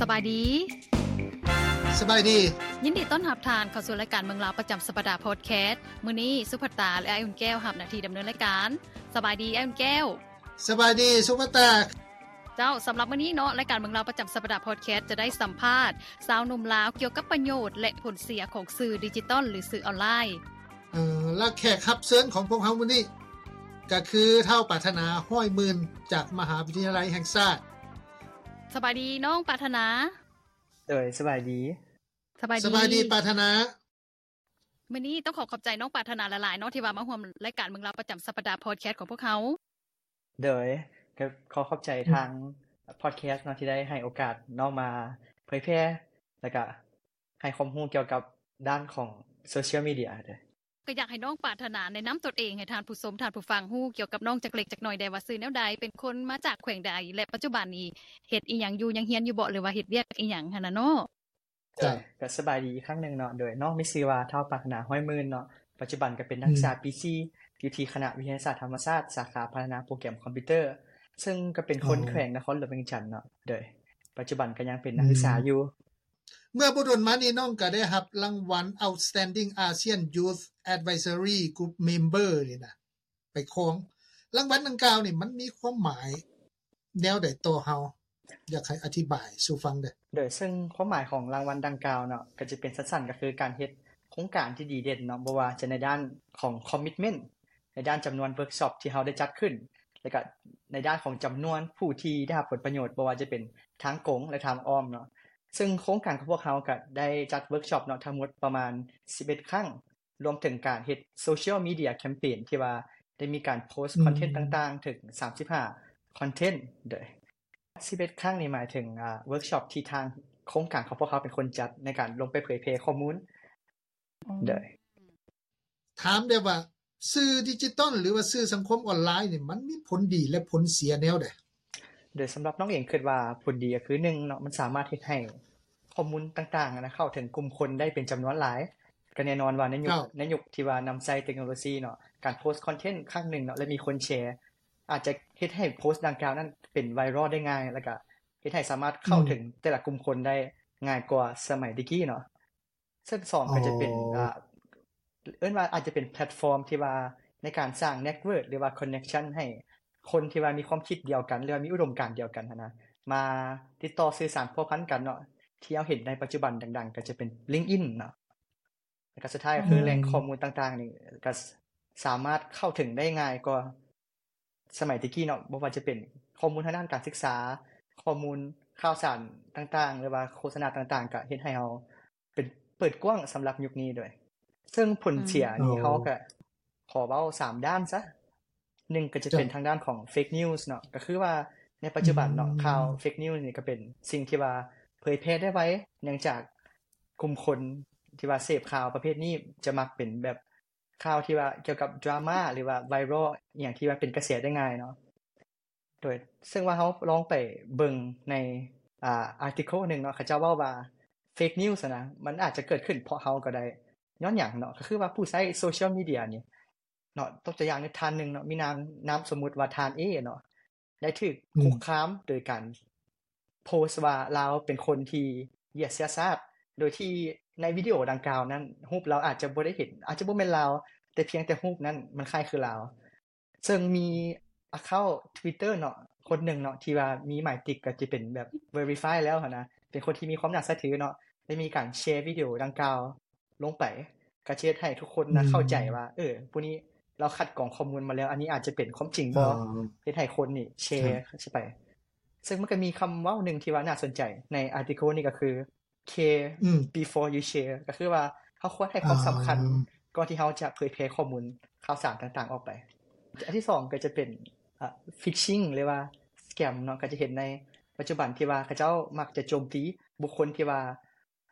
ສະບາຍດີ. ສະບາຍດີ. ຍິນດີຕ້ອນຮັບທ່ານເຂົ້າສູ່ລາຍການເມືອງລາວປະຈຳສັບປະດາພອດແຄສ. ມື້ນີ້ສຸພັດຕາ ແລະ ອ້າຍອຸ່ນແກ້ວຮັບໜ້າທີ່ດຳເນີນລາຍການ. ສະບາຍດີອ້າຍອຸ່ນແກ້ວ. ສະບາຍດີສຸພັດຕາ. ເຈົ້າ, ສຳລັບມື້ນີ້ເນາະ, ລາຍການເມືອງລາວປະຈຳສັບປະດາພອດແຄສຈະໄດ້ສຳພາດຊາວໜຸ່ມລາວກ່ຽວກັບປະໂຫຍດ ແລະ ຜົນເສຍຂອງສື່ດິຈິຕອນ ຫຼື ສື່ອອນລາຍ. ເອີ ແລະ ແຂກຮັບເຊີນຂອງພວກເຮົາມື້ນີ້ ກໍຄືທ້າວປາດຖະໜາ ຮ້ອຍໝື່ນ ຈາກມະຫາວິທະຍາໄລແຫ່ງຊາດ. ສະບາຍດີນ້ອງປາດຖະໜາ. ໂດຍ ສະບາຍດີ. ສະບາຍດີ ສະບາຍດີປາດຖະໜາ. ມື້ນີ້ຕ້ອງຂໍຂອບໃຈນ້ອງປາດຖະໜາຫຼາຍໆເນາະ ທີ່ວ່າມາຮ່ວມລາຍການເມືອງລາວປະຈຳສັບປະດາພອດແຄສຂອງພວກເຮົາ. ໂດຍ ກໍຂໍຂອບໃຈທາງພອດແຄສເນາະ ທີ່ໄດ້ໃຫ້ໂອກາດນ້ອງມາເຜີຍແຜ່ ແລ້ວກະໃຫ້ຄວາມຮູ້ກ່ຽວກັບດ້ານຂອງໂຊຊຽວມີເດຍເດີ. ກໍຢາກໃຫ້ນ້ອງປາດຖະໜາແນະນຳຕົນເອງໃຫ້ທ່ານຜູ້ຊົມ ທ່ານຜູ້ຟັງຮູ້ກ່ຽວກັບນ້ອງຈັກເລັກຈັກໜ້ອຍແດ່ວ່າຊື່ແນວໃດ, ເປັນຄົນມາຈາກແຂວງໃດ ແລະ ປັດຈຸບັນນີ້ເຮັດອີ່ຫຍັງຢູ່, ຍັງຮຽນຢູ່ບໍ່ ຫຼືວ່າເຮັດວຽກອີ່ຫຍັງຫັ້ນນະເນາະ? ເຈົ້າ ກໍສະບາຍດີອີກຄັ້ງໜຶ່ງເນາະ. ໂດຍ ນ້ອງມີຊື່ວ່າ ທ້າວປາດຖະໜາ ຮ້ອຍໝື່ນ ເນາະ, ປັດຈຸບັນກໍເປັນນັກສຶກສາ ອືມ ປີສີ່ ຢູ່ທີ່ຄະນະວິທະຍາສາດທຳມະຊາດ ສາຂາພັດທະນາໂປຣແກຣມຄອມພິວເຕີ ເຊິ່ງກໍເປັນຄົນ ອໍ ແຂວງນະຄອນຫຼວງວຽງຈັນເນາະ. ໂດຍ ປັດຈຸບັນກໍຍັງເປັນນັກສຶກສາ ອືມ ຢູ່. ເມື່ອບໍ່ດົນມານີ້ ນ້ອງກໍໄດ້ຮັບລາງວັນ Outstanding ASEAN Youth Advisory Group Member ນີ້ນະ ໄປຄອງ. ລາງວັນດັ່ງກ່າວນີ້ ມັນມີຄວາມໝາຍແນວໃດຕໍ່ເຮົາ? ຢາກໃຫ້ອະທິບາຍສູ່ຟັງເດີ້. ໂດຍ ເຊິ່ງຄວາມໝາຍຂອງລາງວັນດັ່ງກ່າວເນາະ ກໍຈະເປັນສັ້ນໆ ກໍຄືການເຮັດໂຄງການທີ່ດີເດັ່ນເນາະ, ບໍ່ວ່າຈະໃນດ້ານຂອງຄອມມິດເມັນ ໃນດ້ານຈຳນວນເວີກຊັອບທີ່ເຮົາໄດ້ຈັດຂຶ້ນ ແລ້ວກໍໃນດ້ານຂອງຈຳນວນຜູ້ທີ່ໄດ້ຮັບຜົນປະໂຫຍດ ບໍ່ວ່າຈະເປັນທາງກົງ ແລະ ທາງອ້ອມເນາະ. ເຊິ່ງໂຄງການຂອງພວກເຮົາກໍໄດ້ຈັດເວີກຊັອບເນາະ ທັງໝົດປະມານສິບເອັດຄັ້ງ. ລວມເຖິງການເຮັດໂຊຊຽວມີເດຍແຄມເປນ ທີ່ວ່າໄດ້ມີການໂພສ ອືມ ຄອນເທັນຕ່າງໆ ເຖິງສາມສິບຫ້າຄອນເທັນ. ໂດຍ ສິບເອັດຄັ້ງນີ້ໝາຍເຖິງ ອາ ເວີກຊັອບທີ່ທາງໂຄງການຂອງພວກເຮົາເປັນຄົນຈັດ ໃນການລົງໄປເຜີຍແຜ່ຂໍ້ມູນ. ອືມ ໂດຍ ຖາມແດ່ວ່າ ສື່ດິຈິຕອນ ຫຼືວ່າສື່ສັງຄົມອອນລາຍນີ້ ມັນມີຜົນດີ ແລະ ຜົນເສຍແນວໃດ? ໂດຍສຳລັບນ້ອງເອງຄິດວ່າຜົນດີກໍຄື ໜຶ່ງເນາະ ມັນສາມາດເຮັດໃຫ້ຂໍ້ມູນຕ່າງໆນະ ເຂົ້າເຖິງກຸ່ມຄົນໄດ້ເປັນຈຳນວນຫຼາຍ. ກໍແນ່ນອນວ່າໃນຍຸກ ເຈົ້າ ໃນຍຸກທີ່ວ່ານຳໃຊ້ເຕັກໂນໂລຊີເນາະ ການໂພສຄອນເທັນຄັ້ງໜຶ່ງເນາະ ແລະ ມີຄົນແຊ ອາດຈະເຮັດໃຫ້ໂພສດັ່ງກ່າວນັ້ນເປັນໄວຣັລໄດ້ງ່າຍ ແລ້ວກໍເຮັດໃຫ້ສາມາດເຂົ້າເຖິງ ອືມ ແຕ່ລະກຸ່ມຄົນໄດ້ງ່າຍກວ່າສະໄໝແຕ່ກີ້ເນາະ. ເຊິ່ງສອງ ອໍ ກໍຈະເປັນ ອ່າ ເອີ້ນວ່າອາດຈະເປັນແພລດຟອມທີ່ວ່າໃນການສ້າງເນັດເວີກ ຫຼືວ່າຄອນເນັກຊັນໃຫ້ຄົນທີ່ວ່າມີຄວາມຄິດດຽວກັນ ຫຼືວ່າມີອຸດົມການດຽວກັນຫັ້ນນະ ມາຕິດຕໍ່ສື່ສານພົວພັນກັນເນາະ. ທີ່ເຮົາເຫັນໃນປັດຈຸບັນດັງໆ ກໍຈະເປັນ LinkedIn ເນາະ ແລ້ວກໍສຸດທ້າຍກໍຄື ອືມ ແຫຼ່ງຂໍ້ມູນຕ່າງໆນີ້ ກໍສາມາດເຂົ້າເຖິງໄດ້ງ່າຍກວ່າ ສະໄໝແຕ່ກີ້ເນາະ ບໍ່ວ່າຈະເປັນຂໍ້ມູນທາງດ້ານການສຶກສາ, ຂໍ້ມູນຂ່າວສານຕ່າງໆ ຫຼືວ່າໂຄສະນາຕ່າງໆ ກະເຮັດໃຫ້ເຮົາເປັນ ເປີດກວ້າງສຳລັບຍຸກນີ້ດ້ວຍ. ເຊິ່ງຜົນເສຍນີ້ ອືມ ເຮົາກະຂໍເວົ້າສາມດ້ານຊະ. ໜຶ່ງ ກະຈະເປັນ ເຈົ້າ ທາງດ້ານຂອງເຟກນິວສ໌ເນາະ, ກະຄືວ່າໃນປັດຈຸບັນເນາະ ອືມ ຂ່າວເຟກນິວສ໌ນີ້ກະເປັນສິ່ງທີ່ວ່າເຜີຍແຜ່ໄດ້ໄວ ເນື່ອງຈາກກຸ່ມຄົນທີ່ວ່າເສບຂ່າວປະເພດນີ້ຈະມັກເປັນແບບ ຂ່າວທີ່ວ່າກ່ຽວກັບດຣາມາ ຫຼືວ່າໄວຣັລ ອີ່ຫຍັງທີ່ວ່າເປັນກະແສໄດ້ງ່າຍເນາະ. ໂດຍ ເຊິ່ງວ່າເຮົາລອງໄປເບິ່ງໃນ ອ່າ ອາຕິເຄິນໜຶ່ງເນາະ ເຂົາເຈົ້າເວົ້າວ່າເຟກນິວສ໌ຫັ້ນນະ ມັນອາດຈະເກີດຂຶ້ນເພາະເຮົາກໍໄດ້. ຍ້ອນຫຍັງເນາະ? ກໍຄືວ່າຜູ້ໃຊ້ໂຊຊຽວມີເດຍນີ້ເນາະ ຕົກຕົວຢ່າງໃນທ່ານໜຶ່ງເນາະ ມີນາມ ນາມສົມມຸດວ່າທ່ານເອເນາະ ໄດ້ຖືກ ອືມ ຄຸກຄາມໂດຍການໂພສວ່າລາວເປັນຄົນທີ່ຢຽດເຊື້ອຊາດ ໂດຍທີ່ໃນວິດີໂອດັ່ງກ່າວນັ້ນ ຮູບລາວອາດຈະບໍ່ໄດ້ເຫັນ ອາດຈະບໍ່ແມ່ນລາວ ແຕ່ພຽງແຕ່ຮູບນັ້ນມັນຄ້າຍຄືລາວ. ເຊິ່ງມີອາເຄົາທວິດເຕີເນາະ ຄົນໜຶ່ງເນາະ ທີ່ວ່າມີໝາຍຕິກ ກໍຈະເປັນແບບເວຣິຟາຍແລ້ວຫັ້ນນະ ເປັນຄົນທີ່ມີຄວາມໜ້າເຊື່ອຖືເນາະ ໄດ້ມີການແຊວິດີໂອດັ່ງກ່າວ ລົງໄປ ກໍຈະເຮັດໃຫ້ທຸກຄົນນະ ອືມ ເຂົ້າໃຈວ່າ ເອີ ຜູ້ນີ້ລາວຄັດກອງຂໍ້ມູນມາແລ້ວ ອັນນີ້ອາດຈະເປັນຄວາມຈິງບໍ່ ອໍ ເຮັດໃຫ້ຄົນນີ້ແຊ ແຊໄປ. ເຊິ່ງມັນກໍມີຄຳເວົ້າໜຶ່ງທີ່ວ່າໜ້າສົນໃຈໃນອາຕິເຄິນນີ້ ກໍຄື care ອືມ before you share ກໍຄືວ່າເຮົາຄວນໃຫ້ຄວາມສຳຄັນ ອ່າ ກ່ອນທີ່ເຮົາຈະເຜີຍແຜ່ຂໍ້ມູນຂ່າວສານຕ່າງໆອອກໄປ. ອັນທີສອງ ກໍຈະເປັນ ອ່າ ຟິຊຊິງ ຫຼືວ່າສະແກມເນາະ ກໍຈະເຫັນໃນປັດຈຸບັນທີ່ວ່າເຂົາເຈົ້າມັກຈະໂຈມຕີບຸກຄົນທີ່ວ່າ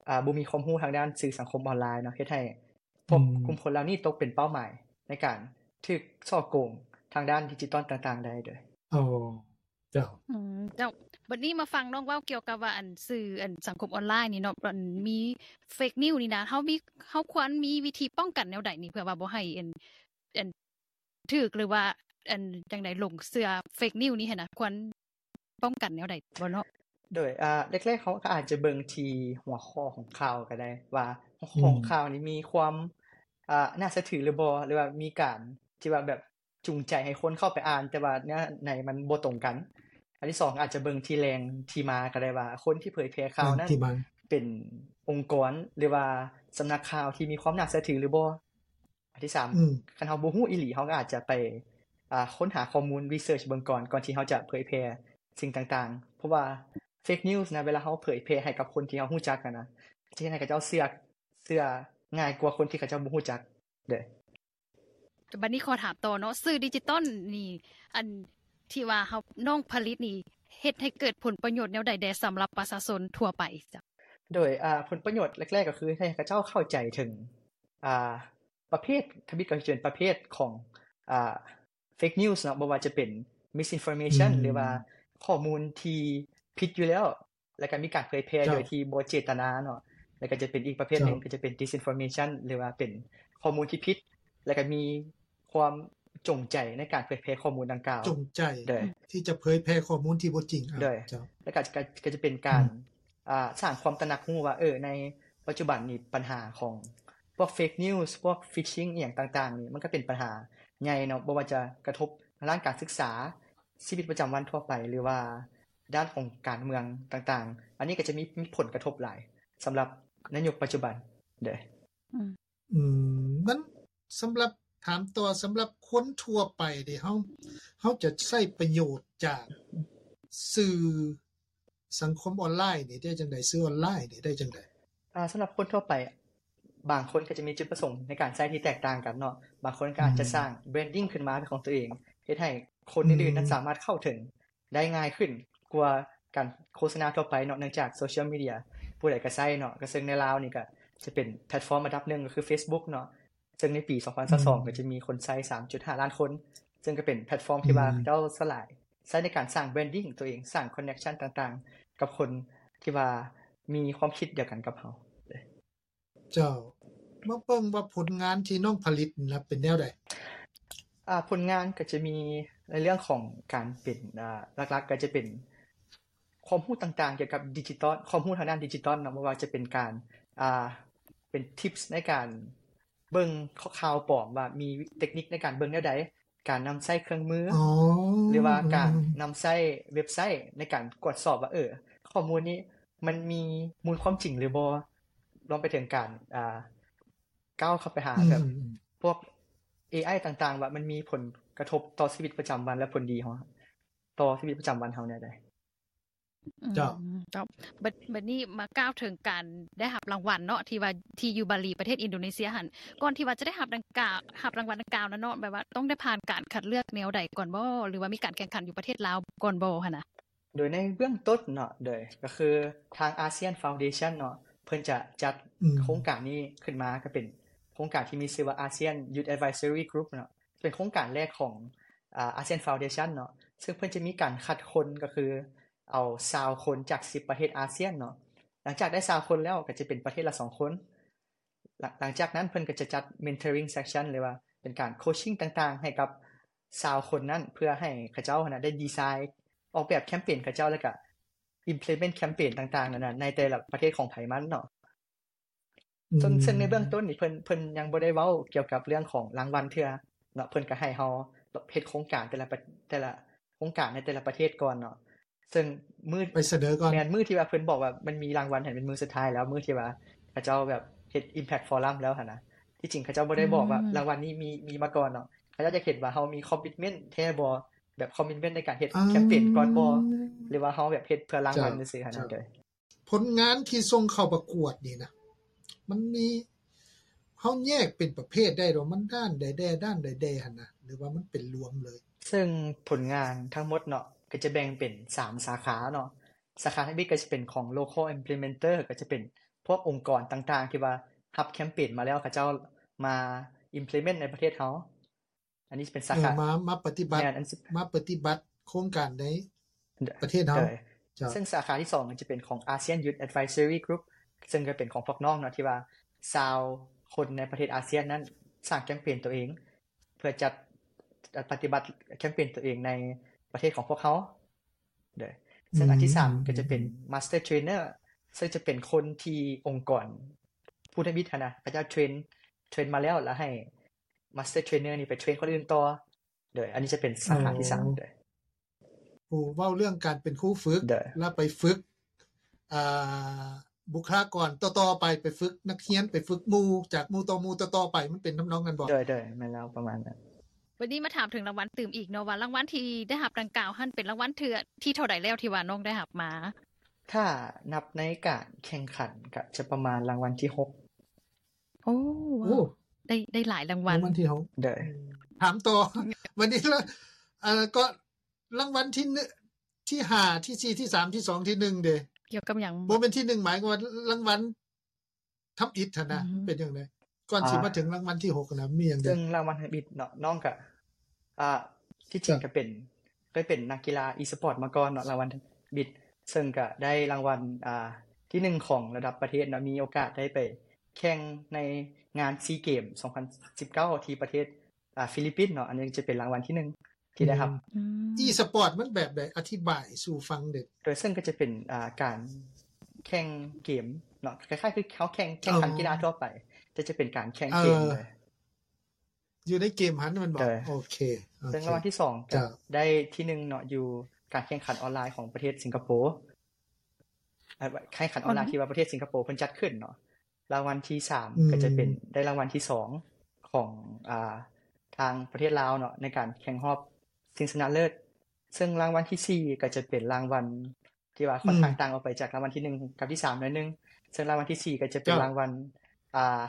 ອ່າ ບໍ່ມີຄວາມຮູ້ທາງດ້ານສື່ສັງຄົມອອນລາຍເນາະ ເຮັດໃຫ້ພວກ ອືມ ກຸ່ມຄົນເຫຼົ່ານີ້ຕົກເປັນເປົ້າໝາຍໃນການຖືກສໍ້ໂກງທາງດ້ານດິຈິຕອນຕ່າງໆໄດ້ເດີ. ໂອ້ ເຈົ້າ ອືມ ເຈົ້າ. ບັດນີ້ມາຟັງນ້ອງເວົ້າກ່ຽວກັບວ່າ ອັນ ສື່ ອັນ ສັງຄົມອອນລາຍນີ້ເນາະ ອັນ ມີເຟກນິວສ໌ນີ້ນະ ເຮົາມີ ເຮົາຄວນມີວິທີປ້ອງກັນແນວໃດນີ້ ເພື່ອວ່າບໍ່ໃຫ້ ອັນ ອັນ ຖືກ ຫຼືວ່າ ອັນ ຈັ່ງໃດ ຫຼົງເຊື່ອເຟກນິວສ໌ນີ້ຫັ້ນນະ ຄວນ ປ້ອງກັນແນວໃດບໍ່ເນາະ? ໂດຍ ອ່າ ແລກໆ ເຮົາກໍອາດຈະເບິ່ງທີ່ຫົວຂໍ້ຂອງຂ່າວກໍໄດ້ ວ່າຫົວຂໍ້ຂອງ ອືມ ຂ່າວນີ້ມີຄວາມ ອ່າ ໜ້າເຊື່ອຖືຫຼືບໍ່ ຫຼືວ່າມີການທີ່ວ່າແບບຈູງໃຈໃຫ້ຄົນເຂົ້າໄປອ່ານ ແຕ່ວ່າເນື້ອໃນມັນບໍ່ຕົງກັນ. ອັນທີສອງ ອາດຈະເບິ່ງທີ່ແຫຼ່ງທີ່ມາກໍໄດ້ ວ່າຄົນທີ່ເຜີຍແຜ່ຂ່າວນັ້ນ ແຫຼ່ງທີ່ມາ ເປັນອົງກອນ ຫຼືວ່າສຳນັກຂ່າວທີ່ມີຄວາມໜ້າເຊື່ອຖືຫຼືບໍ່. ອັນທີສາມ ອືມ ຄັນເຮົາບໍ່ຮູ້ອີ່ຫຼີ ເຮົາກໍອາດຈະໄປ ອ່າ ຄົ້ນຫາຂໍ້ມູນ research ເບິ່ງກ່ອນ ກ່ອນທີ່ເຮົາຈະເຜີຍແຜ່ສິ່ງຕ່າງໆ ເພາະວ່າ fake news ນະ ເວລາເຮົາເຜີຍແຜ່ໃຫ້ກັບຄົນທີ່ເຮົາຮູ້ຈັກຫັ້ນນະ ຈະເຮັດໃຫ້ເຂົາເຈົ້າເຊື່ອ ເຊື່ອງ່າຍກວ່າຄົນທີ່ເຂົາເຈົ້າບໍ່ຮູ້ຈັກເດ້. ບັດນີ້ຂໍຖາມຕໍ່ເນາະ ສື່ດິຈິຕອນນີ້ ອັນທີ່ວ່າເຮົາ ນ້ອງຜະລິດນີ້ ເຮັດໃຫ້ເກີດຜົນປະໂຫຍດແນວໃດແດ່ສຳລັບປະຊາຊົນທົ່ວໄປເຈົ້າ? ໂດຍ ອ່າ ຜົນປະໂຫຍດແລກໆ ກໍຄືໃຫ້ເຂົາເຈົ້າເຂົ້າໃຈເຖິງ ອ່າ ປະເພດ ທຳອິດກໍຈະເປັນປະເພດຂອງ ອ່າ fake news ເນາະ ບໍ່ວ່າຈະເປັນ misinformation ອືມ ຫຼືວ່າຂໍ້ມູນທີ່ຜິດຢູ່ແລ້ວ ແລ້ວກໍມີການເຜີຍແຜ່ ເຈົ້າ ໂດຍທີ່ບໍ່ເຈດຕະນາເນາະ ແລ້ວກໍຈະເປັນອີກປະເພດໜຶ່ງ ເຈົ້າ ກໍຈະເປັນ disinformation ຫຼືວ່າເປັນຂໍ້ມູນທີ່ຜິດ ແລ້ວກໍມີຄວາມຈົງໃຈໃນການເຜີຍແຜ່ຂໍ້ມູນດັ່ງກ່າວ ຈົງໃຈ ໂດຍ ທີ່ຈະເຜີຍແຜ່ຂໍ້ມູນທີ່ບໍ່ຈິງ ໂດຍ ເຈົ້າ ແລ້ວກໍ ກໍ ກໍຈະເປັນການ ອືມ ອ່າ ສ້າງຄວາມຕະໜັກຮູ້ວ່າ ເອີ ໃນປັດຈຸບັນນີ້ ບັນຫາຂອງພວກ fake news ພວກ phishing ອີ່ຫຍັງຕ່າງໆນີ້ ມັນກໍເປັນບັນຫາໃຫຍ່ເນາະ ບໍ່ວ່າຈະກະທົບທາງດ້ານການສຶກສາ, ຊີວິດປະຈຳວັນທົ່ວໄປ ຫຼືວ່າດ້ານຂອງການເມືອງຕ່າງໆ ອັນນີ້ກໍຈະມີ ມີຜົນກະທົບຫຼາຍສຳລັບໃນຍຸກປັດຈຸບັນເດ້. ອືມ ອືມ ມັນ ສຳລັບ ຖາມຕໍ່ ສຳລັບຄົນທົ່ວໄປເດ ເຮົາ ເຮົາຈະໃຊ້ປະໂຫຍດຈາກສື່ສັງຄົມອອນລາຍນີ້ໄດ້ຈັ່ງໃດ? ສື່ອອນລາຍນີ້ໄດ້ຈັ່ງໃດ? ອ່າ ສຳລັບຄົນທົ່ວໄປ ບາງຄົນກໍຈະມີຈຸດປະສົງໃນການໃຊ້ທີ່ແຕກຕ່າງກັນເນາະ, ບາງຄົນກໍອາດຈະ ອືມ ສ້າງ branding ຂຶ້ນມາເປັນຂອງຕົວເອງ ເຮັດໃຫ້ຄົນ ອືມ ອື່ນໆນັ້ນສາມາດເຂົ້າເຖິງໄດ້ງ່າຍຂຶ້ນກວ່າການໂຄສະນາທົ່ວໄປເນາະ, ເນື່ອງຈາກໂຊຊຽວມີເດຍຜູ້ໃດກໍໃຊ້ເນາະ, ກໍເຊິ່ງໃນລາວນີ້ກໍຈະເປັນແພລດຟອມອັນດັບໜຶ່ງກໍຄື Facebook ເນາະ, ເຊິ່ງໃນປີສອງພັນຊາວສອງ ອືມ ກໍຈະມີຄົນໃຊ້ສາມຈຸດຫ້າລ້ານຄົນ, ເຊິ່ງກໍເປັນແພລດຟອມທີ່ວ່າ ອືມ ເຂົາເຈົ້າສະຫຼາຍ ໃຊ້ໃນການສ້າງ branding ຕົວເອງ, ສ້າງ connection ຕ່າງໆ ກັບຄົນທີ່ວ່າມີຄວາມຄິດດຽວກັນກັບເຮົາ. ເຈົ້າ ມາເບິ່ງວ່າຜົນງານທີ່ນ້ອງຜະລິດນີ້ລະເປັນແນວໃດ? ອ່າ ຜົນງານກໍຈະມີໃນເລື່ອງຂອງການເປັນ ອ່າ ຫຼັກໆ ກໍຈະເປັນຄວາມຮູ້ຕ່າງໆ ກ່ຽວກັບດິຈິຕອນ, ຄວາມຮູ້ທາງດ້ານດິຈິຕອນເນາະ, ບໍ່ວ່າຈະເປັນການ ອ່າ ເປັນ tips ໃນການເບິ່ງ ຂ- ຂ່າວປອມ ວ່າມີເຕັກນິກໃນການເບິ່ງແນວໃດ, ການນຳໃຊ້ເຄື່ອງມື ອໍ ຫຼືວ່າການ ອືມໆໆ ນຳໃຊ້ເວັບໄຊໃນການກວດສອບວ່າ ເອີ ຂໍ້ມູນນີ້ມັນມີມູນຄວາມຈິງຫຼືບໍ່, ລວມໄປເຖິງການ ອ່າ ກ້າວເຂົ້າໄປຫາ ອືມໆ ແບບພວກ ເອໄອ ຕ່າງໆ ວ່າມັນມີຜົນກະທົບຕໍ່ຊີວິດປະຈຳວັນ ແລະ ຜົນດີເຮົາ ຕໍ່ຊີວິດປະຈຳວັນເຮົາແນວໃດ. ເຈົ້າ ອືມ ເຈົ້າ ບັດ ບັດນີ້ມາກ່າວເຖິງການໄດ້ຮັບລາງວັນເນາະ ທີ່ວ່າທີ່ຢູ່ບາລີ ປະເທດອິນໂດເນເຊຍຫັ້ນ, ກ່ອນທີ່ວ່າຈະໄດ້ຮັບດັ່ງກ່າວ ຮັບລາງວັນດັ່ງກ່າວນັ້ນເນາະ ແບບວ່າຕ້ອງໄດ້ຜ່ານການຄັດເລືອກແນວໃດກ່ອນບໍ່ ຫຼືວ່າມີການແຂ່ງຂັນຢູ່ປະເທດລາວກ່ອນບໍ່ຫັ້ນນະ? ໂດຍໃນເບື້ອງຕົ້ນເນາະ ໂດຍ ກໍຄືທາງ ASEAN Foundation ເນາະ ເພິ່ນຈະຈັດ ອືມ ໂຄງການນີ້ຂຶ້ນມາ ກໍເປັນໂຄງການທີ່ມີຊື່ວ່າ ASEAN Youth Advisory Group ເນາະ, ເປັນໂຄງການແລກຂອງ ອາ ASEAN Foundation ເນາະ, ເຊິ່ງເພິ່ນຈະມີການຄັດຄົນ ກໍຄືເອົາຊາວຄົນຈາກສິບປະເທດອາຊຽນເນາະ. ຫຼັງຈາກໄດ້ຊາວຄົນແລ້ວ ກໍຈະເປັນປະເທດລະສອງຄົນ. ຫຼັງ ຫຼັງຈາກນັ້ນເພິ່ນກໍຈະຈັດ mentoring session ຫຼືວ່າເປັນການ coaching ຕ່າງໆ ໃຫ້ກັບຊາວຄົນນັ້ນ ເພື່ອໃຫ້ເຂົາເຈົ້າຫັ້ນນະໄດ້ດີໄຊ ອອກແບບແຄມເປນເຂົາເຈົ້າ ແລ້ວກໍ implement ແຄມເປນຕ່າງໆນັ້ນນະ ໃນແຕ່ລະປະເທດຂອງໃຜມັນເນາະ. ອືມ ເຊິ່ງ ເຊິ່ງໃນເບື້ອງຕົ້ນນີ້ເພິ່ນ ເພິ່ນຍັງບໍ່ໄດ້ເວົ້າກ່ຽວກັບເລື່ອງຂອງລາງວັນເທື່ອເນາະ, ເພິ່ນກໍໃຫ້ເຮົາເຮັດໂຄງການແຕ່ລະປະ ແຕ່ລະໂຄງການໃນແຕ່ລະປະເທດກ່ອນເນາະ. ເຊິ່ງມື້ ໄປສະເໜີກ່ອນ ແມ່ນ ມື້ທີ່ວ່າເພິ່ນບອກວ່າມັນມີລາງວັນຫັ້ນ ເປັນມື້ສຸດທ້າຍແລ້ວ ມື້ທີ່ວ່າເຂົາເຈົ້າແບບເຮັດ Impact Forum ແລ້ວຫັ້ນນະ. ທີ່ຈິງເຂົາເຈົ້າບໍ່ໄດ້ບອກວ່າ ອືມ ລາງວັນນີ້ມີ ມີມາກ່ອນເນາະ, ເຂົາເຈົ້າຢາກເຫັນວ່າເຮົາມີ commitment ແທ້ບໍ່ ແບບ commitment ໃນການເຮັດ ອ່າ ແຄມເປນກ່ອນບໍ່ ຫຼືວ່າເຮົາແບບເຮັດເພື່ອລາງວັນ ເຈົ້າ ຊື່ໆຫັ້ນນະ. ເຈົ້າ ໂດຍ ຜົນງານທີ່ສົ່ງເຂົ້າປະກວດນີ້ນະ ມັນມີ ເຮົາແຍກເປັນປະເພດໄດ້ບໍ່ ມັນດ້ານໃດແດ່ ດ້ານໃດແດ່ຫັ້ນນະ ຫຼືວ່າມັນເປັນລວມເລີຍ? ເຊິ່ງຜົນງານທັງໝົດເນາະ ກໍຈະແບ່ງເປັນສາມສາຂາເນາະ. ສາຂາທຳອິດກໍຈະເປັນຂອງ local implementer ກໍຈະເປັນພວກອົງກອນຕ່າງໆ ທີ່ວ່າຮັບແຄມເປນມາແລ້ວ ເຂົາເຈົ້າມາ implement ໃນປະເທດເຮົາ. ອັນນີ້ເປັນສາຂາ ເອີ ມາ ມາປະຕິບັດ ແມ່ນ ອັນ ມາປະຕິບັດໂຄງການໃນປະເທດເຮົາ. ໂດຍ ເຈົ້າ ເຊິ່ງສາຂາທີສອງຈະເປັນຂອງ ASEAN Youth Advisory Group ເຊິ່ງກໍເປັນຂອງພວກນ້ອງເນາະ ທີ່ວ່າຊາວຄົນໃນປະເທດອາຊຽນນັ້ນສ້າງແຄມເປນຕົວເອງ ເພື່ອຈັດ ປະຕິບັດແຄມເປນຕົວເອງໃນປະເທດຂອງພວກເຮົາ. ໂດຍ ເຊິ່ງອັນທີສາມກໍຈະເປັນ Master Trainer ເຊິ່ງຈະເປັນຄົນທີ່ອົງກອນຜູ້ທຳອິດຫັ້ນນະ ເຂົາເຈົ້າເທຣນ ເທຣນມາແລ້ວ ແລ້ວໃຫ້ Master Trainer ນີ້ໄປເທຣນຄົນອື່ນຕໍ່. ໂດຍ ອັນນີ້ຈະເປັນສາຂາທີສາມ. ໂດຍ ຜູ້ເວົ້າເລື່ອງການເປັນຄູຝຶກ ແລ້ວໄປຝຶກ ອ່າ ບຸກຄະລາກອນຕໍ່ໆໄປ ໄປຝຶກນັກຮຽນ ໄປຝຶກໝູ່ ຈາກໝູ່ຕໍ່ໝູ່ຕໍ່ໆໄປ ມັນເປັນທຳນອງນັ້ນບໍ່? ໂດຍ ໂດຍ ແມ່ນແລ້ວ ປະມານນັ້ນ. ບັດນີ້ມາຖາມເຖິງລາງວັນຕື່ມອີກເນາະ ວ່າລາງວັນທີ່ໄດ້ຮັບດັ່ງກ່າວຫັ້ນ ເປັນລາງວັນເທື່ອທີເທົ່າໃດແລ້ວທີ່ວ່ານ້ອງໄດ້ຮັບມາ? ຖ້ານັບໃນການແຂ່ງຂັນ ກະຈະປະມານລາງວັນທີຫົກ. ໂອ້ ໂອ້ ໄດ້ ໄດ້ຫຼາຍລາງວັນ ລາງວັນທີຫົກ. ໂດຍ ຖາມຕໍ່ ບັດນີ້ລະ ເອີ ກໍລາງວັນທີໜຶ່ງ ທີຫ້າ ທີສີ່ ທີສາມ ທີສອງ ທີໜຶ່ງເດ? ກ່ຽວກັບຫຍັງ? ບໍ່ແມ່ນທີໜຶ່ງ ໝາຍຄວາມວ່າລາງວັນທຳອິດຫັ້ນນະ ເປັນຈັ່ງໃດ? ກ່ອນຊິມາເຖິງລາງວັນທີຫົກນະ ມີຫຍັງແດ່? ເຊິ່ງລາງວັນທຳອິດເນາະ ນ້ອງກະ ອ່າ ທີ່ຈິງກະເປັນ ເຄີຍເປັນນັກກິລາອີສະປອດມາກ່ອນເນາະ. ລາງວັນທຳອິດ ເຊິ່ງກະໄດ້ລາງວັນ ອ່າ ທີໜຶ່ງຂອງລະດັບປະເທດເນາະ ມີໂອກາດໄດ້ໄປແຂ່ງໃນງານຊີເກມສອງພັນສິບເກົ້າ ທີ່ປະເທດ ອ່າ ຟີລິບປິນເນາະ ອັນນີ້ຈະເປັນລາງວັນທີໜຶ່ງທີ່ໄດ້ຮັບ. ອືມ ອີສະປອດມັນແບບໃດ? ອະທິບາຍສູ່ຟັງເດ້. ໂດຍ ເຊິ່ງກໍຈະເປັນ ອ່າ ການແຂ່ງເກມເນາະ ຄ້າຍໆຄືເຮົາແຂ່ງ ແຂ່ງຂັນກິລາທົ່ວໄປ ແຕ່ຈະເປັນການແຂ່ງເກມເລີຍ ຢູ່ໃນເກມຫັ້ນແມ່ນບໍ່? ໂອເຄ ເຊິ່ງລາງວັນທີສອງກໍໄດ້ທີໜຶ່ງເນາະ ຢູ່ການແຂ່ງຂັນອອນລາຍຂອງປະເທດສິງກະໂປ ແຂ່ງຂັນອອນລາຍທີ່ວ່າປະເທດສິງກະໂປເພິ່ນຈັດຂຶ້ນເນາະ. ລາງວັນທີສາມ ກໍຈະເປັນ ໄດ້ລາງວັນທີສອງຂອງ ອ່າ ທາງປະເທດລາວເນາະ ໃນການແຂ່ງຮອບຊິງຊະນະເລີດ. ເຊິ່ງລາງວັນທີສີ່ ກໍຈະເປັນລາງວັນທີ່ວ່າຂ້ອນຂ້າງຕ່າງອອກໄປຈາກລາງວັນທີໜຶ່ງກັບທີສາມໜ້ອຍໜຶ່ງ. ເຊິ່ງລາງວັນທີສີ່ ກໍຈະເປັນລາງວັນ ອ່າ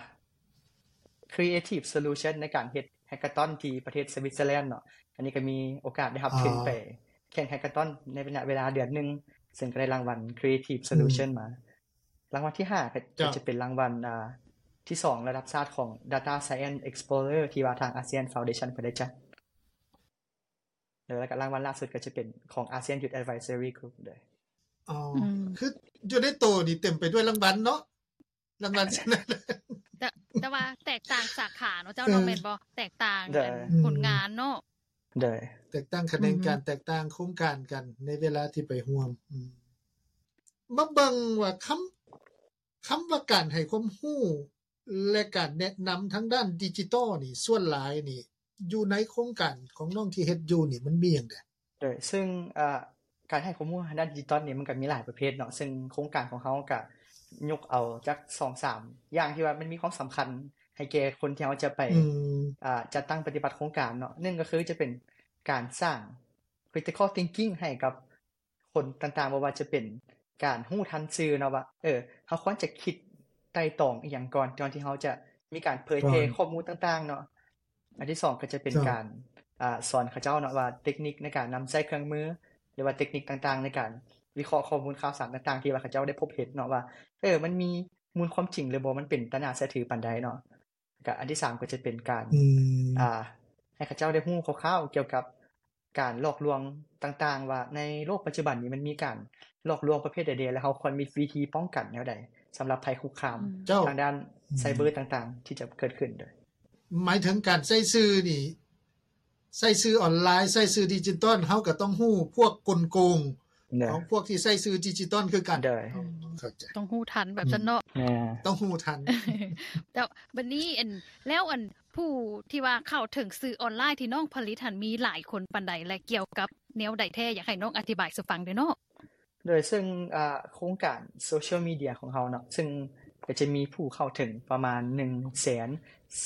Creative Solution ໃນການເຮັດ Hackathon ທີ່ປະເທດ Switzerland ເນາະ. ອັນນີ້ກໍມີໂອກາດໄດ້ຮັບທຶນໄປແຂ່ງ Hackathon ໃນໄລຍະເວລາເດືອນໜຶ່ງ ເຊິ່ງກໍໄດ້ລາງວັນ Creative Solution ມາ. ລາງວັນທີຫ້າ ກໍຈະເປັນລາງວັນ ອ່າ ທີສອງລະດັບຊາດຂອງ Data Science Explorer ທີ່ວ່າທາງ ASEAN Foundation ເພິ່ນໄດ້ຈັດ ແລ້ວກໍລາງວັນລ່າສຸດກໍຈະເປັນຂອງ ASEAN Youth Advisory Group ເດີ. ອໍ ຄືຢູ່ໃນໂຕນີ້ເຕັມໄປດ້ວຍລາງວັນເນາະ ລາງວັນຊະນະເລີດ ແຕ່ ແຕ່ວ່າແຕກຕ່າງສາຂາເນາະເຈົ້າເນາະ ແມ່ນບໍ່? ແຕກຕ່າງ ຜົນງານເນາະ ໂດຍ ແຕກຕ່າງຂະແໜງການ ແຕກຕ່າງໂຄງການກັນໃນເວລາທີ່ໄປຮ່ວມ. ມາເບິ່ງວ່າຄຳ ຄຳວ່າການໃຫ້ຄວາມຮູ້ ແລະ ການແນະນຳທາງດ້ານດິຈິຕອລນີ້ ສ່ວນຫຼາຍນີ້ ຢູ່ໃນໂຄງການຂອງນ້ອງທີ່ເຮັດຢູ່ນີ້ ມັນມີຫຍັງແດ່? ໂດຍ ເຊິ່ງ ເອີ ການໃຫ້ຄວາມຮູ້ທາງດ້ານດິຈິຕອລນີ້ ມັນກໍມີຫຼາຍປະເພດເນາະ ເຊິ່ງໂຄງການຂອງເຮົາກໍຍົກເອົາຈັກສອງສາມຢ່າງທີ່ວ່າມັນມີຄວາມສຳຄັນໃຫ້ແກ່ຄົນທີ່ເຮົາຈະໄປ ອືມ ອ່າ ຈັດຕັ້ງປະຕິບັດໂຄງການເນາະ. ໜຶ່ງກໍຄືຈະເປັນການສ້າງ critical thinking ໃຫ້ກັບ ຄົນຕ່າງໆ ບໍ່ວ່າຈະເປັນການຮູ້ທັນສື່ເນາະວ່າ ເອີ ເຮົາຄວນຈະຄິດໄຕ່ຕອງອີ່ຫຍັງກ່ອນ ກ່ອນທີ່ເຮົາຈະມີການເຜີຍແຜ່ຂໍ້ມູນຕ່າງໆເນາະ. ອັນທີສອງກໍຈະເປັນການ ອ່າ ສອນເຂົາເຈົ້າເນາະວ່າເຕັກນິກໃນການນຳໃຊ້ເຄື່ອງມື ຫຼືວ່າເຕັກນິກຕ່າງໆ ໃນການວິເຄາະຂໍ້ມູນຂ່າວສານຕ່າງໆ ທີ່ວ່າເຂົາເຈົ້າໄດ້ພົບເຫັນເນາະວ່າ ເອີ ມັນມີມູນຄວາມຈິງ ຫຼືບໍ່ ມັນເປັນຕາໜ້າເຊື່ອຖືປານໃດເນາະ. ກະອັນທີສາມກໍຈະເປັນການ ອືມ ອ່າ ໃຫ້ເຂົາເຈົ້າໄດ້ຮູ້ຄ່າວໆກ່ຽວກັບການຫຼອກລວງຕ່າງໆ ວ່າໃນໂລກປັດຈຸບັນນີ້ມັນມີການຫຼອກລວງປະເພດໃດແດ່ ແລະ ເຮົາຄວນມີວິທີປ້ອງກັນແນວໃດ ສຳລັບໄພຄຸກຄາມ ອືມ ທາງດ້ານ ອືມ ໄຊເບີຕ່າງໆ ທີ່ຈະເກີດຂຶ້ນ. ໂດຍ ໝາຍເຖິງການໃຊ້ສື່ນີ້ ໃຊ້ສື່ອອນລາຍ ໃຊ້ສື່ດິຈິຕອນ ເຮົາກໍຕ້ອງຮູ້ພວກກົນໂກງ ຂອງພວກທີ່ໃຊ້ສື່ດິຈິຕອນຄືກັນ. ໂດຍ ເຂົ້າໃຈ ຕ້ອງຮູ້ທັນແບບຊັ້ນເນາະ. ອືມ ຕ້ອງຮູ້ທັນ. ແລ້ວບັດນີ້ ອັນ ແລ້ວ ອັນ ຜູ້ທີ່ວ່າເຂົ້າເຖິງສື່ອອນລາຍທີ່ນ້ອງຜະລິດຫັ້ນ ມີຫຼາຍຄົນປານໃດ ແລະ ກ່ຽວກັບແນວໃດແທ້? ຢາກໃຫ້ນ້ອງອະທິບາຍສູ່ຟັງແດ່ເນາະ. ໂດຍ ເຊິ່ງ ອ່າ ໂຄງການໂຊຊຽວມີເດຍຂອງເຮົາເນາະ ເຊິ່ງກໍຈະມີຜູ້ເຂົ້າເຖິງປະມານໜຶ່ງແສນ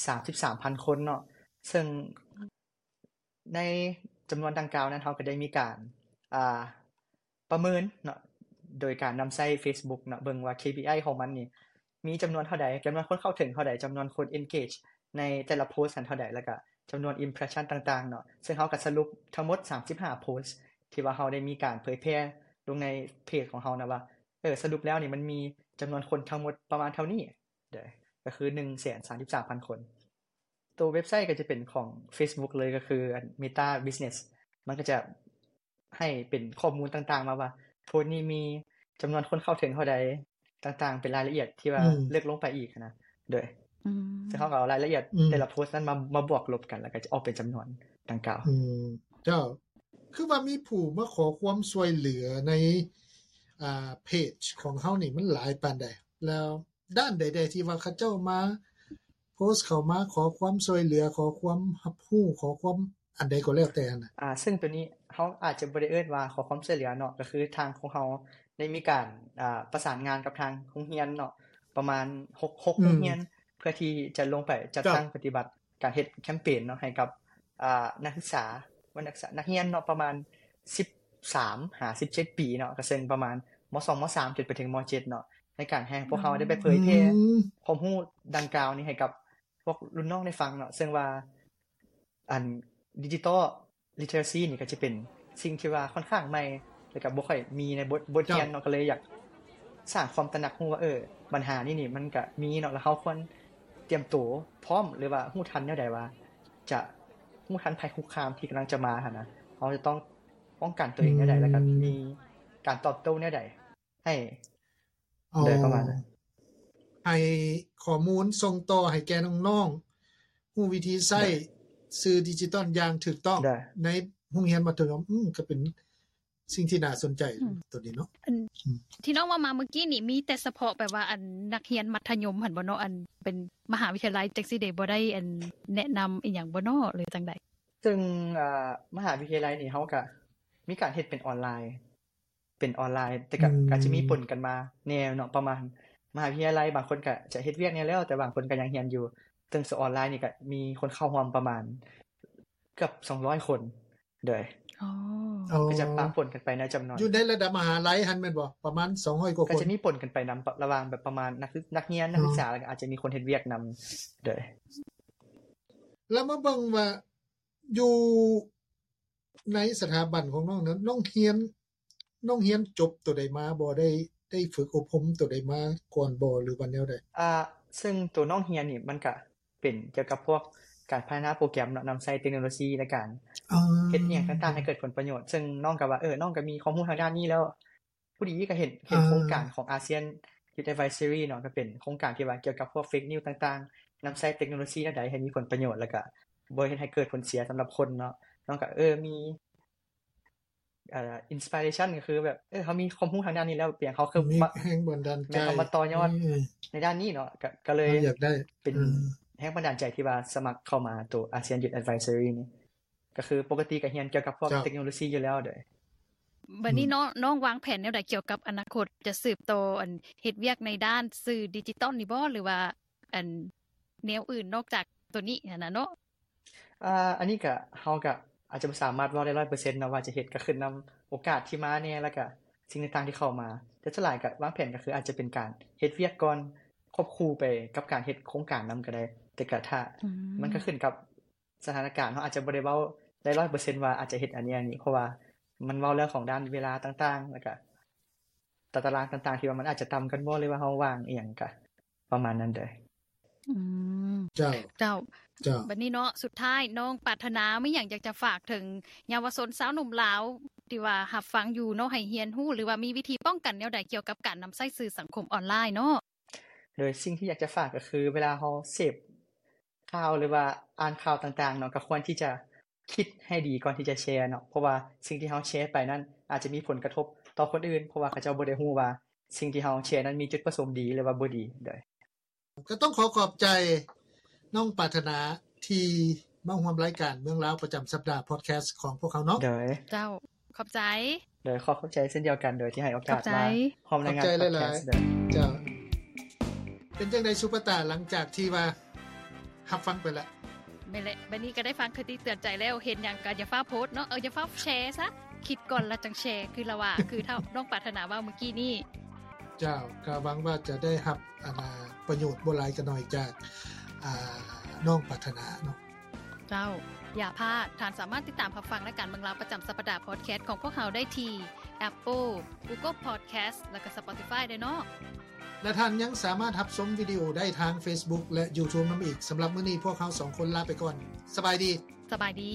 ສາມສິບສາມພັນຄົນເນາະ ເຊິ່ງ ໃນຈຳນວນດັ່ງກ່າວນັ້ນ ເຮົາກໍໄດ້ມີການ ອ່າ ປະເມີນເນາະ ໂດຍການນຳໃຊ້ Facebook ເນາະ ເບິ່ງວ່າ KPI ຂອງມັນນີ້ມີຈຳນວນເທົ່າໃດ, ຈຳນວນຄົນເຂົ້າເຖິງເທົ່າໃດ, ຈຳນວນຄົນ engage ໃນແຕ່ລະໂພສຫັ້ນເທົ່າໃດ ແລ້ວກະຈຳນວນ impression ຕ່າງໆເນາະ. ເຊິ່ງເຮົາກໍສະຫຼຸບທັງໝົດ ສາມສິບຫ້າໂພສທີ່ວ່າເຮົາໄດ້ມີການເຜີຍແຜ່ລົງໃນເພຈຂອງເຮົານະວ່າ ເອີ ສະຫຼຸບແລ້ວນີ້ມັນມີຈຳນວນຄົນທັງໝົດປະມານເທົ່ານີ້ ໂດຍ ກໍຄືໜຶ່ງແສນສາມສິບສາມພັນຄົນ. ໂຕເວັບໄຊກໍຈະເປັນຂອງ Facebook ເລີຍ ກໍຄື Meta Business ມັນກໍຈະໃຫ້ເປັນຂໍ້ມູນຕ່າງໆມາວ່າ ໂພສນີ້ມີຈຳນວນຄົນເຂົ້າເຖິງເທົ່າໃດຕ່າງໆ ເປັນລາຍລະອຽດທີ່ວ່າ ອືມ ເລິກລົງໄປອີກນະ. ໂດຍ ອືມ ເຊິ່ງເຮົາກໍເອົາລາຍລະອຽດ ອືມ ແຕ່ລະໂພສນັ້ນມາ ມາບວກລົບກັນ ແລ້ວກໍຈະອອກເປັນຈຳນວນດັ່ງກ່າວ. ອືມ ເຈົ້າ ຄືວ່າມີຜູ້ມາຂໍຄວາມຊ່ວຍເຫຼືອໃນ ອ່າ ເພຈຂອງເຮົານີ້ມັນຫຼາຍປານໃດ? ແລ້ວດ້ານໃດແດ່ທີ່ວ່າເຂົາເຈົ້າມາໂພສເຂົ້າມາຂໍຄວາມຊ່ວຍເຫຼືອ ຂໍຄວາມຮັບຮູ້ ຂໍຄວາມອັນໃດກໍແລ້ວແຕ່ຫັ້ນນະ? ອ່າ ເຊິ່ງໂຕນີ້ເຮົາອາດຈະບໍ່ໄດ້ເອີ້ນວ່າຂໍຄວາມຊ່ວຍເຫຼືອເນາະ, ກໍຄືທາງຂອງເຮົາໄດ້ມີການ ອ່າ ປະສານງານກັບທາງໂຮງຮຽນເນາະ ປະມານຫົກ ຫົກ ອືມ ໂຮງຮຽນ ເພື່ອທີ່ຈະລົງໄປຈັດຕັ້ງປະຕິບັດ ການເຮັດແຄມເປນເນາະ ໃຫ້ກັບ ອ່າ ນັກສຶກສາ ນັກສຶກສາ ນັກຮຽນເນາະ ປະມານສິບສາມຫາສິບເຈັດປີເນາະ ກໍເຊິ່ງປະມານ ມ.ສອງ ມ.ສາມ ຈົນໄປເຖິງ ມ.ເຈັດ ເນາະ ໃນການໃຫ້ພວກເຮົາໄດ້ໄປເຜີຍແຜ່ ອືມ ຄວາມຮູ້ດັ່ງກ່າວນີ້ໃຫ້ກັບພວກລຸ້ນນ້ອງໄດ້ຟັງເນາະ ເຊິ່ງວ່າ ອັນ digital literacy ນີ້ກໍຈະເປັນສິ່ງທີ່ວ່າຂ້ອນຂ້າງໃໝ່ ແລ້ວກໍບໍ່ຄ່ອຍມີໃນບົດ ບົດຮຽນເນາະ ກໍເລີຍຢາກສ້າງຄວາມຕະໜັກຮູ້ວ່າ ເອີ ບັນຫານີ້ນີ້ມັນກໍມີເນາະ ແລ້ວເຮົາຄວນຕຽມໂຕພ້ອມ ຫຼືວ່າຮູ້ທັນແນວໃດວ່າຈະຮູ້ທັນໄພຄຸກຄາມທີ່ກຳລັງຈະມາຫັ້ນນະ. ເຮົາຈະຕ້ອງປ້ອງກັນຕົວເອງແນວໃດ ອືມ ແລ້ວກໍມີການຕອບໂຕ້ແນວໃດ ໃຫ້ ອໍ ໂດຍປະມານນັ້ນ ໃຫ້ຂໍ້ມູນສົ່ງຕໍ່ໃຫ້ແກ່ນ້ອງໆ ຮູ້ວິທີໃຊ້ ໂດຍ ສື່ດິຈິຕອນຢ່າງຖືກຕ້ອງ ໂດຍ ໃນໂຮງຮຽນມັດທະຍົມ. ອືມ ກໍເປັນສິ່ງທີ່ໜ້າສົນໃຈ ອືມ ໂຕນີ້ເນາະ. ອັນ ອືມ ທີ່ນ້ອງເວົ້າມາເມື່ອກີ້ນີ້ ມີແຕ່ສະເພາະແບບວ່າ ອັນ ນັກຮຽນມັດທະຍົມຫັ້ນບໍ່ເນາະ? ອັນເປັນມະຫາວິທະຍາໄລຈັ່ງຊີ້ເດ ບໍ່ໄດ້ ອັນ ແນະນຳອີ່ຫຍັງບໍ່ເນາະ ຫຼືຈັ່ງໃດ? ເຊິ່ງ ອ່າ ມະຫາວິທະຍາໄລນີ້ ເຮົາກະມີການເຮັດເປັນອອນລາຍ ເປັນອອນລາຍ ແຕ່ກະ ອືມ ອາດຈະມີປົນກັນມາແດ່ເນາະ ປະມານ ມະຫາວິທະຍາໄລບາງຄົນກະຈະເຮັດວຽກແດ່ແລ້ວ ແຕ່ບາງຄົນກະຍັງຮຽນຢູ່ ເຊິ່ງສອນອອນລາຍນີ້ກະມີຄົນເຂົ້າຮ່ວມປະມານເກືອບສອງຮ້ອຍຄົນ ໂດຍ ອໍ ກໍຈະປະປົນກັນໄປໃນຈຳນວນ ຢູ່ໃນລະດັບມະຫາໄລຫັ້ນແມ່ນບໍ່? ປະມານສອງຮ້ອຍກວ່າຄົນ ກໍຈະມີປົນກັນໄປນຳ ລະຫວ່າງແບບປະມານນັກ ນັກຮຽນ ນັກສຶກສາ ແລ້ວກໍອາດຈະມີຄົນເຮັດວຽກນຳ ໂດຍ ແລ້ວມາເບິ່ງວ່າຢູ່ ໃນສະຖາບັນຂອງນ້ອງນັ້ນ ນ້ອງຮຽນ ນ້ອງຮຽນຈົບໂຕໃດມາບໍ່? ໄດ້ ໄດ້ຝຶກອົບຮົມໂຕໃດມາກ່ອນບໍ່ ຫຼືວ່າແນວໃດ? ອ່າ ເຊິ່ງໂຕນ້ອງຮຽນນີ້ ມັນກະເປັນກ່ຽວກັບພວກການພັດທະນາໂປຣແກຣມເນາະ ນຳໃຊ້ເຕັກໂນໂລຊີໃນການ ອ່າ ເຮັດອີ່ຫຍັງຕ່າງໆໃຫ້ເກີດຜົນປະໂຫຍດ ເຊິ່ງນ້ອງກໍວ່າ ເອີ ນ້ອງກໍມີຄວາມຮູ້ທາງດ້ານນີ້ແລ້ວ ພໍດີກໍເຫັນ ເຫັນ ອ່າ ໂຄງການຂອງ ASEAN Youth Advisory ເນາະ ກໍເປັນໂຄງການທີ່ວ່າກ່ຽວກັບພວກ fake news ຕ່າງໆ ນຳໃຊ້ເຕັກໂນໂລຊີແນວໃດໃຫ້ມີຜົນປະໂຫຍດ ແລ້ວກໍບໍ່ເຮັດໃຫ້ເກີດຜົນເສຍສຳລັບຄົນເນາະ. ນ້ອງກໍ ເອີ ມີ ເອີ inspiration ກໍຄືແບບ ເອີ ເຮົາມີຄວາມຮູ້ທາງດ້ານນີ້ແລ້ວ ເປັນຫຍັງເຮົາຄື ມີແຮງບັນດານໃຈ ແມ່ນ ເຮົາມາຕໍ່ຍອດ ອືມ ໃນດ້ານນີ້ເນາະ ກໍ ກໍເລີຍ ເຮົາຢາກໄດ້ ເປັນ ອືມ ແຮງບັນດານໃຈທີ່ວ່າສະໝັກເຂົ້າມາໂຕ ASEAN Youth Advisory ນີ້ ກໍຄືປົກກະຕິກໍຮຽນກ່ຽວກັບພວກ ເຈົ້າ ເຕັກໂນໂລຊີຢູ່ແລ້ວ. ໂດຍ ບັດນີ້ເນາະ ອືມ ນ້ອງວາງແຜນແນວໃດກ່ຽວກັບອະນາຄົດ ຈະສືບຕໍ່ອັນເຮັດວຽກໃນດ້ານສື່ດິຈິຕອນນີ້ບໍ່ ຫຼືວ່າອັນແນວອື່ນນອກຈາກໂຕນີ້ຫັ້ນນະເນາະ? ອ່າ ອັນນີ້ກະ ເຮົາກະອາດຈະບໍ່ສາມາດເວົ້າໄດ້ຮ້ອຍເປີເຊັນເນາະວ່າຈະເຮັດ ກະຂຶ້ນນຳໂອກາດທີ່ມາແດ່ ແລ້ວກະສິ່ງຕ່າງໆທີ່ເຂົ້າມາ ແຕ່ສ່ວນຫຼາຍກະວາງແຜນກະຄືອາດຈະເປັນການເຮັດວຽກກ່ອນ ຄວບຄູ່ໄປກັບການເຮັດໂຄງການນຳກະໄດ້ ແຕ່ກະຖ້າ ອືມ ມັນກະຂຶ້ນກັບສະຖານະການ ເຮົາອາດຈະບໍ່ໄດ້ເວົ້າໄດ້ຮ້ອຍເປີເຊັນວ່າອາດຈະເຮັດອັນນີ້ອັນນີ້ ເພາະວ່າມັນເວົ້າເລື່ອງຂອງດ້ານເວລາຕ່າງໆ ແລ້ວກະ ຕາຕະລາງຕ່າງໆ ທີ່ວ່າມັນອາດຈະຕ່ຳກັນບໍ່ ຫຼືວ່າເຮົາວ່າງອີ່ຫຍັງກະປະມານນັ້ນເດີ. ອືມ ເຈົ້າ ເຈົ້າ ເຈົ້າ ບັດນີ້ເນາະ ສຸດທ້າຍນ້ອງປາດຖະໜາມີຫຍັງຢາກຈະຝາກເຖິງເຍົາວະຊົນຊາວໜຸ່ມລາວທີ່ວ່າຮັບຟັງຢູ່ເນາະ ໃຫ້ຮຽນຮູ້ ຫຼືວ່າມີວິທີປ້ອງກັນແນວໃດກ່ຽວກັບການນຳໃຊ້ສື່ສັງຄົມອອນລາຍເນາະ? ໂດຍສິ່ງທີ່ຢາກຈະຝາກກໍຄື ເວລາເຮົາເສບຂ່າວ ຫຼືວ່າອ່ານຂ່າວຕ່າງໆເນາະ ກໍຄວນທີ່ຈະຄິດໃຫ້ດີກ່ອນທີ່ຈະແຊເນາະ ເພາະວ່າສິ່ງທີ່ເຮົາແຊໄປນັ້ນອາດຈະມີຜົນກະທົບຕໍ່ຄົນອື່ນ ເພາະວ່າເຂົາເຈົ້າບໍ່ໄດ້ຮູ້ວ່າສິ່ງທີ່ເຮົາແຊນັ້ນມີຈຸດປະສົງດີ ຫຼືວ່າບໍ່ດີ. ໂດຍ ກໍຕ້ອງຂໍຂອບໃຈນ້ອງປາດຖະໜາທີ່ມາຮ່ວມລາຍການເມືອງລາວປະຈຳສັບດາພອດແຄສຂອງພວກເຮົາເນາະ. ໂດຍ ເຈົ້າ ຂອບໃຈ. ໂດຍ ຂໍຂອບໃຈເຊັ່ນດຽວກັນ ໂດຍທີ່ໃຫ້ໂອກາດມາຮ່ວມລາຍງານພອດແຄສ. ເຈົ້າ ເປັນຈັ່ງໃດສຸປະຕາ ຫຼັງຈາກທີ່ວ່າຮັບຟັງໄປແລ້ວ? ແມ່ນແຫຼະ ບັດນີ້ກໍໄດ້ຟັງຄະຕິເຕືອນໃຈແລ້ວ ເຫັນຫຍັງກໍຢ່າຟ້າວໂພສເນາະ ເອີ ຢ່າຟ້າວແຊຊະ ຄິດກ່ອນແລ້ວຈັ່ງແຊ ຄືລະວ່າ ຄືເທົ່ານ້ອງປາດຖະໜາເວົ້າມື້ກີ້ນີ້. ເຈົ້າ ກໍຫວັງວ່າຈະໄດ້ຮັບ ອັນ ປະໂຫຍດບໍ່ຫຼາຍກໍໜ້ອຍຈາກ ອ່າ ນ້ອງປາດຖະໜາເນາະ. ເຈົ້າ ຢ່າພາດ ທ່ານສາມາດຕິດຕາມຮັບຟັງລາຍການເມືອງລາວປະຈຳສັບປະດາພອດແຄສຂອງພວກເຮົາໄດ້ທີ່ Apple, Google Podcast ແລະກໍ Spotify ເດີເນາະ ແລະ ທ່ານຍັງສາມາດຮັບຊົມວິດີໂອໄດ້ທາງ Facebook ແລະ YouTube ນຳອີກ. ສຳລັບມື້ນີ້ພວກເຮົາສອງຄົນລາໄປກ່ອນ. ສະບາຍດີ. ສະບາຍດີ.